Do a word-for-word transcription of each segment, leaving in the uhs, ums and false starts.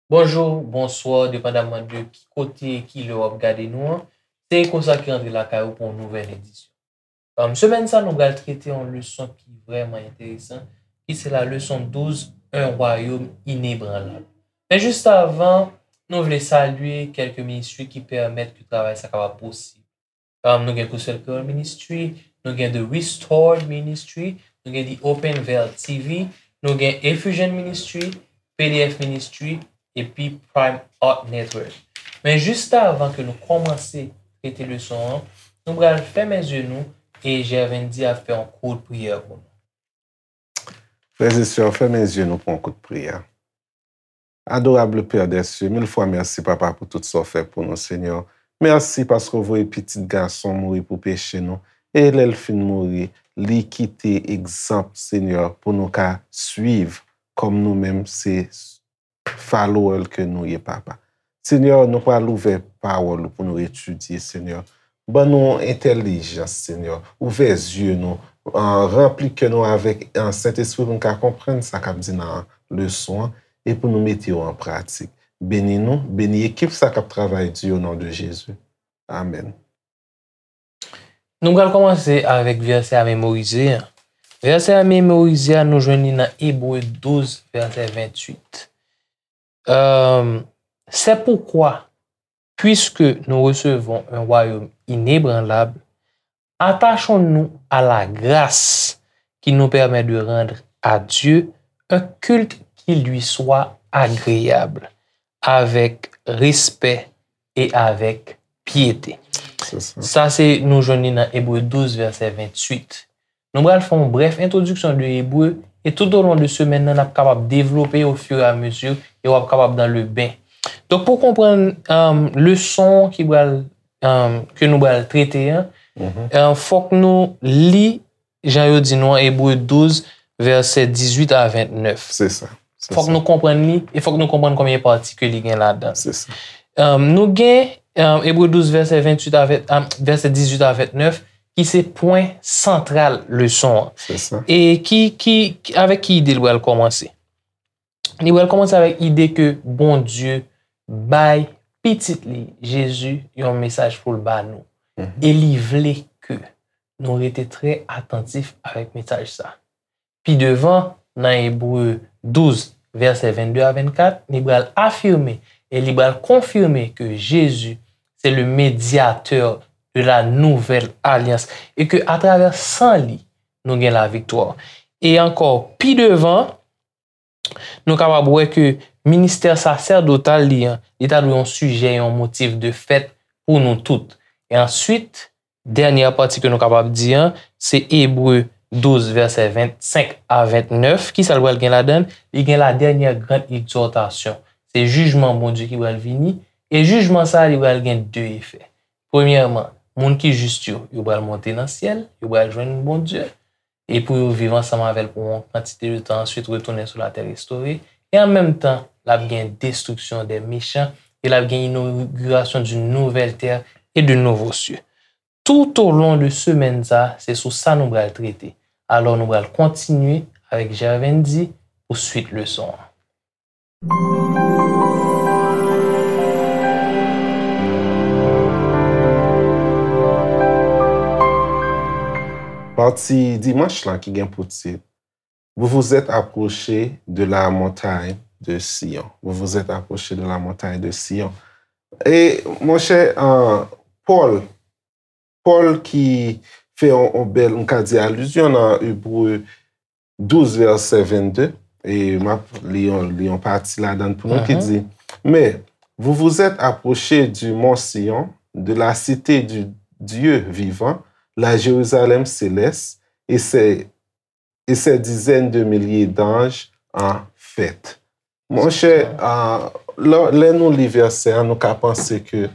Bonjou, bonswa, depandaman de ki kote e ki lè w ap gade nou an. Se Eko sa ki rantre lakay ou pou yon nouvèl edisyon. Um, semèn sa, nou pral trete yon leson ki vrèman enteresan, ki se la leson douz, Un royaume inébranlable. Men jis avan, nou vle salye kèlke ministri ki pèmèt ke travay sa kapab posib. Um, nou gen Gospel Creole Ministry, nou gen The Restored Ministry, nou gen The Open Veil T V, nou gen Effusion Ministry, P D F Ministry, epi Prime Art Network. Men jis avan ke nou kòmanse trete leson an, nou pral fèmen zye nou e Gervindy ap fè yon kout priyè pou nou. Frè e sè, fèmen zye nou pou yon kout priyè. Adorable Père des cieux, mil fwa mèsi, Papa, pou tout sa w fè pou nou, Senyè. Mèsi paske w voye pitit gason w mouri pou peche nou. E lè l fin mouri, li kite egzanp, Senyè, pou nou ka swiv kòm nou menm se follower ke nou ye, Papa. Senyè, nou pral ouvè pawòl ou pou nou etidye, Senyè. Ban nou entèlijans, Senyè. Ouvè zye nou, ah, ranpli kè nou avèk, ah, Sentespri pou nou ka konprann sa k ap di nan leson an e pou nou mete yo an pratik. Beni nou, beni ekip sa k ap travay di o non de Jezi. Amèn. Nou pral kòmanse avèk vèsè a memorize a. Vèsè a memorize a, nou jwenn li nan Ebre douz, vèsè venntuit. Euh, c'est pourquoi, puisque nous recevons un royaume inébranlable, attachons-nous à la grâce qui nous permet de rendre à Dieu un culte qui lui soit agréable, avec respect et avec piété. Se sa. Sa se, nou jwenn li nan Ebre douz, vèsè venntuit. Nou pral fè yon brèf entwodiksyon de Ebre, e tout o lon de semèn nan, n ap kapab devlope au fur et à mesure, e w ap kapab dans le bain. Donk, pou konprann, um, leson ki pral, um, ke nou pral trete an, um, fòk nou li, jan yo di nou an, Ebre douz, vèsè dizuit a vennèf. Se sa. Se sa. Fòk nou konprann li, e fòk nou konprann konbyen pati ke li gen ladan l. Se sa. Um, nou gen, um, Ebre douz, vèsè venntuit a ven-, um, vèsè dizuit a vennèf, ki se pwen santral leson an. Se sa. E ki, ki, ki, avèk ki ide l pral kòmanse? Li pral kòmanse avèk ide ke Bondye bay Pitit li, Jezi, yon mesaj pou l ba nou. Mhm. E li vle ke nou rete trè atantif avèk mesaj sa. Pi devan, nan Ebre douz, vèsè vennde a vennkat, li pral afime e li pral konfime ke Jezi se le médiateur de la nouvelle alliance e ke atravè san li, nou gen laviktwa. E ankò, pi devan, nou kapab wè ke ministè sasèdotal li an, li ta dwe yon sijè, yon motif de fèt pou nou tout. E answit, dènyè pati ke nou kapab di an, se Ebre douz, vèsè vennsenk a vennèf. Kisa l pral gen ladan l? Li gen la dernière grande exhortation. Se jijman Bondye ki pral vini, e jijman sa a, li pral gen de efè. Premyèman, moun ki jis yo, yo pral monte nan syèl, yo pral jwenn Bondye, e pou yo viv ansanm avè l pou yon kantite de tan, answit retounen sou latè restore, e an menm tan, l ap gen destriksyon dè mechan, e l ap gen inogirasyon d'une nouvelle terre et de nouveaux cieux. Tout o lon de semèn sa, se sou sa nou pral trete. Alò, nou pral kontinye avèk Gervindy pou swit leson an. Pati dimanch lan ki gen pou tit, Vous vous êtes approchés de la montagne de Sion. Vous vous êtes approchés de la montagne de Sion. E, monchè, euh, Pòl, Pòl ki fè yon, yon bèl, m ka di, alizyon nan Ebre douz, vèsè vennde, e m ap li yon, li yon pati ladan l pou nou ki di, Mais vous vous êtes approchés du mont Sion, de la cité du Dieu vivant, la Jérusalem céleste, et ses, et ses dizaines de milliers d'anges en fête. Monchè, ah, lè, lè nou li vèsè a, nou ka panse ke,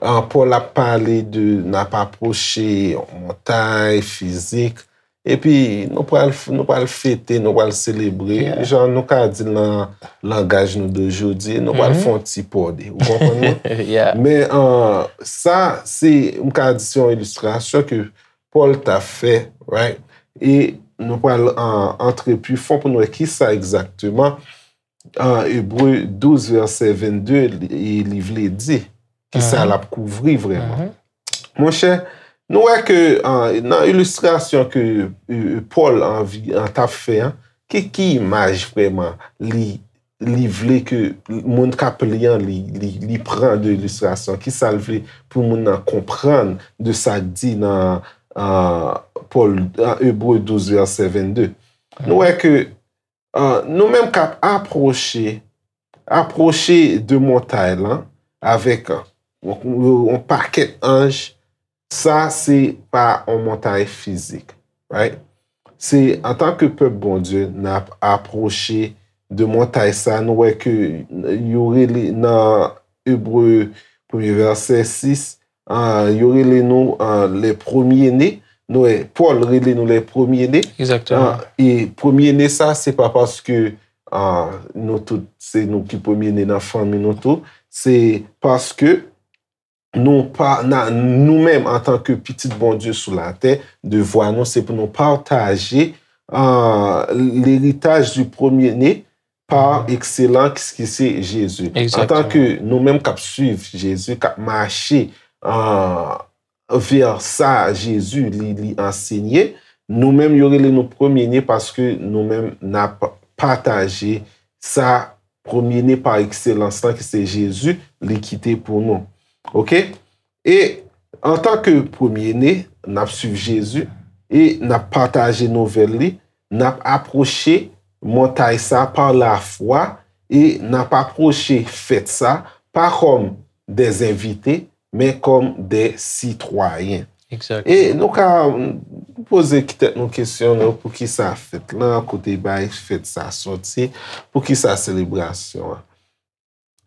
ah, Pòl ap pale de n ap apwoche yon montay fizik, epi nou pral, nou pral fete, nou pral selebre, jan nou ka di l nan langaj nou de jodi, nou pral fè yon ti pòde. Ou konprann mwen? Men, ah, sa, se, m ka di se yon ilistrasyon ke Pòl ta fè, right? E nou pral, ah, antre pi fon pou nou wè kisa egzakteman an Ebre douz vèsè vennde, li, li vle di, ki sa l ap kouvri vrèman. Monchè, nou wè ke an, nan ilistrasyon ke e, e, Pòl anvi, an t ap fè an, ki, ki imaj vrèman li, li vle ke moun k ap li an, li, li, li pran de ilistrasyon? Ki sa l vle pou moun nan konprann de sa k di nan an, Pòl, an Ebre douz vèsè vennde? Nou wè ke an, nou menm k ap apwoche, apwoche de montay lan avèk an, yon, yon pakèt anj, sa se pa yon montay fizik, right? Se antanke pèp Bondye, n ap apwoche de montay sa, nou wè ke yo rele nan Ebre premye vèsè sis, ah, yo rele nou ah, les premiers-nés. Nou wè, Pòl rele nou les premiers-nés. Egzakteman. Ah, e premye ne sa, se pa paske ah, nou tout, se nou ki premye ne nan fanmi nou tou. Se paske nou pa, na, nou menm antanke pitit Bondye sou latè, devwa nou se pou nou pataje ah, leritaj di premye ne pa ekselans ki se Jezi. Egzakteman. Antanke nou menm k ap swiv Jezi, k ap mache ah, vè sa Jezi li, li ansenye, nou menm yo rele nou premye ne paske nou menm n ap pataje sa premye ne pa ekselans lan ki se Jezi, li kite pou nou. Oke? E antanke premye ne, n ap swiv Jezi e n ap pataje nouvèl li, n ap apwoche montay sa pa lafwa e n ap apwoche fèt sa pa kòm des invités, men kòm des citoyens. Egzakteman. E nou ka poze tèt nou kesyon, non, poukisa fèt lan, kote bay fèt sa soti, poukisa selebrasyon an?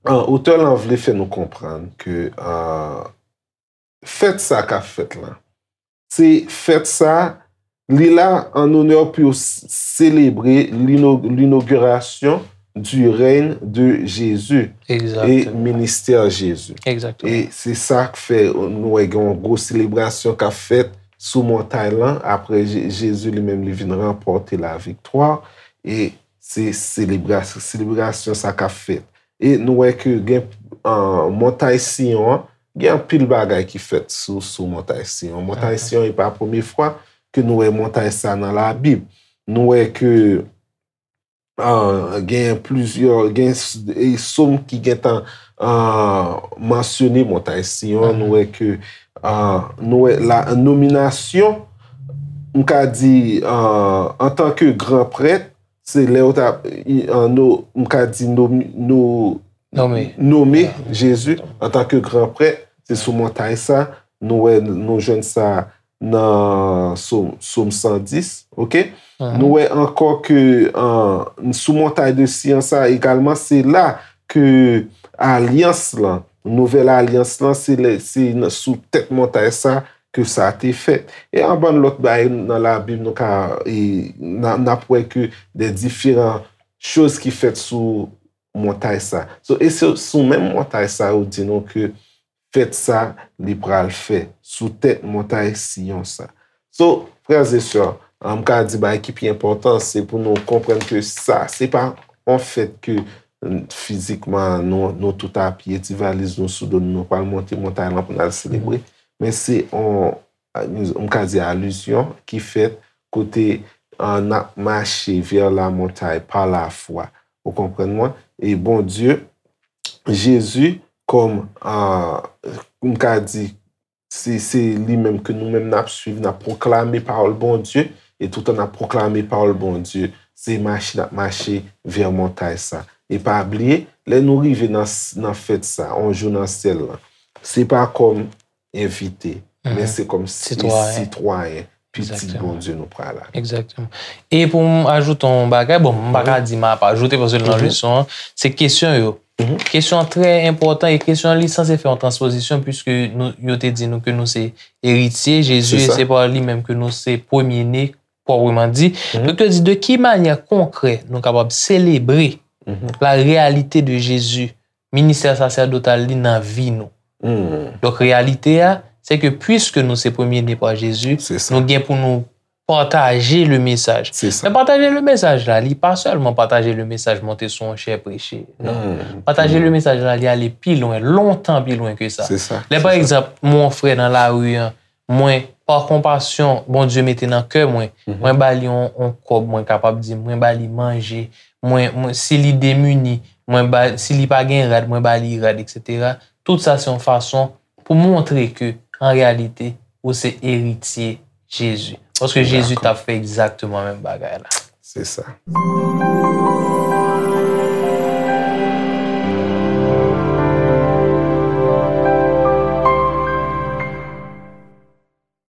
An, otè lan vle fè nou konprann ke an, fèt sa k ap fèt lan, se fèt sa, li la an onè pou yo s- selebre lino- l'inauguration du règne de Jésus e Egzakteman. ministè Jezi. Egzakteman. E se sa k fè nou wè gen yon gwo selebrasyon k ap fèt sou montay lan apre Je- Jezi li menm li vin ranpòte laviktwa. E se selebrasyon, selebrasyon sa k ap fèt. E nou wè ke gen an, montay Siyon an, gen anpil bagay ki fèt sou, sou montay Siyon. Montay Siyon, e pa premye fwa ke nou wè montay sa nan Labib. Nou wè ke ah, gen plizyè, gen s- e sòm ki gentan ah, mansyone montay Siyon. Nou wè ke ah, nou wè la nominasyon, m ka di ah, antanke gran prèt, se lè yo t ap i- an, no- m ka di nomi- no- Nome. nome Jezi antanke gran prèt, se sou montay sa, nou wè, nou jwenn sa nan Sòm, Sòm san dis, oke? Nou wè ankò ke an, sou montay de Siyon sa egalman, se la ke alyans lan, nouvèl alyans lan, se lè, se nan- sou tèt montay sa ke sa te fèt. E an bann lòt bagay nan Labib, nou ka, e, n a- n ap wè ke de diferan choz ki fèt sou montay sa. So, e se sou menm montay sa yo di nou ke fèt sa li pral fè sou tèt montay Siyon sa. So, frè e sè, an, m ka di bagay ki pi enpòtan, se pou nou konprann ke sa, se pa yon fèt ke mm, fizikman nou, nou tout apye, ti valiz nou sou do nou, nou pral monte montay lan pou n al selebre. Men se yon, m ka di alizyon ki fèt kote an, n ap mache vè la montay pa lafwa. Ou konprann mwen? E Bondye, Jezi, kòm, ah, m ka di, se, se li menm ke nou menm n ap swiv, n ap pwoklame pawòl Bondye, e toutan n ap pwoklame pawòl Bondye, se mache n ap mache vè montay sa. E pa bliye, lè nou rive nan, s- nan fèt sa, yon jou nan syèl lan, se pa kòm envite, men se kòm si- Sitwayen. sitwayen, pitit Egzakteman. Bondye nou pral la. Egzakteman. E pou m ajoute yon bagay, bon, m pa ka di m ap ajoute paske nan leson an, se kesyon yo. Kesyon an trè enpòtan e kesyon an li sanse fè yon transpozisyon piske nou, yo te di nou ke nou se eritye, Jezi, Se e sa. Se pa li menm ke nou se premye ne, pwòpman di. Donk, yo di, de ki manyè konkrè nou kapab selebre la réalité de Jésus, ministè sasèdotal li nan vi nou? Donk, reyalite a, se ke piske nou se premye ne pa Jezi, Se sa. Nou gen pou nou pataje le mesaj. Se sa. Men pataje le mesaj la, li pa sèlman pataje le mesaj monte sou yon chè preche. Non. Hmm. Pataje le mesaj la, li ale pi lwen, lontan pi lwen ke sa. Se sa. Lè Se pa sa. Egzanp, mwen yon frè nan lari an, mwen, pa konpasyon, Bondye mete nan kè mwen, Mhm. mwen ba li yon, yon kòb, mwen kapab di, mwen ba li manje, mwen, mwen, si li demini, mwen ba, si li pa gen rad, mwen ba li rad, et cetera. Tout sa se yon fason pou montre ke, an reyalite, ou se eritye Jezi. Paske Jezi Dakò. T ap fè egzakteman menm bagay la. Se sa.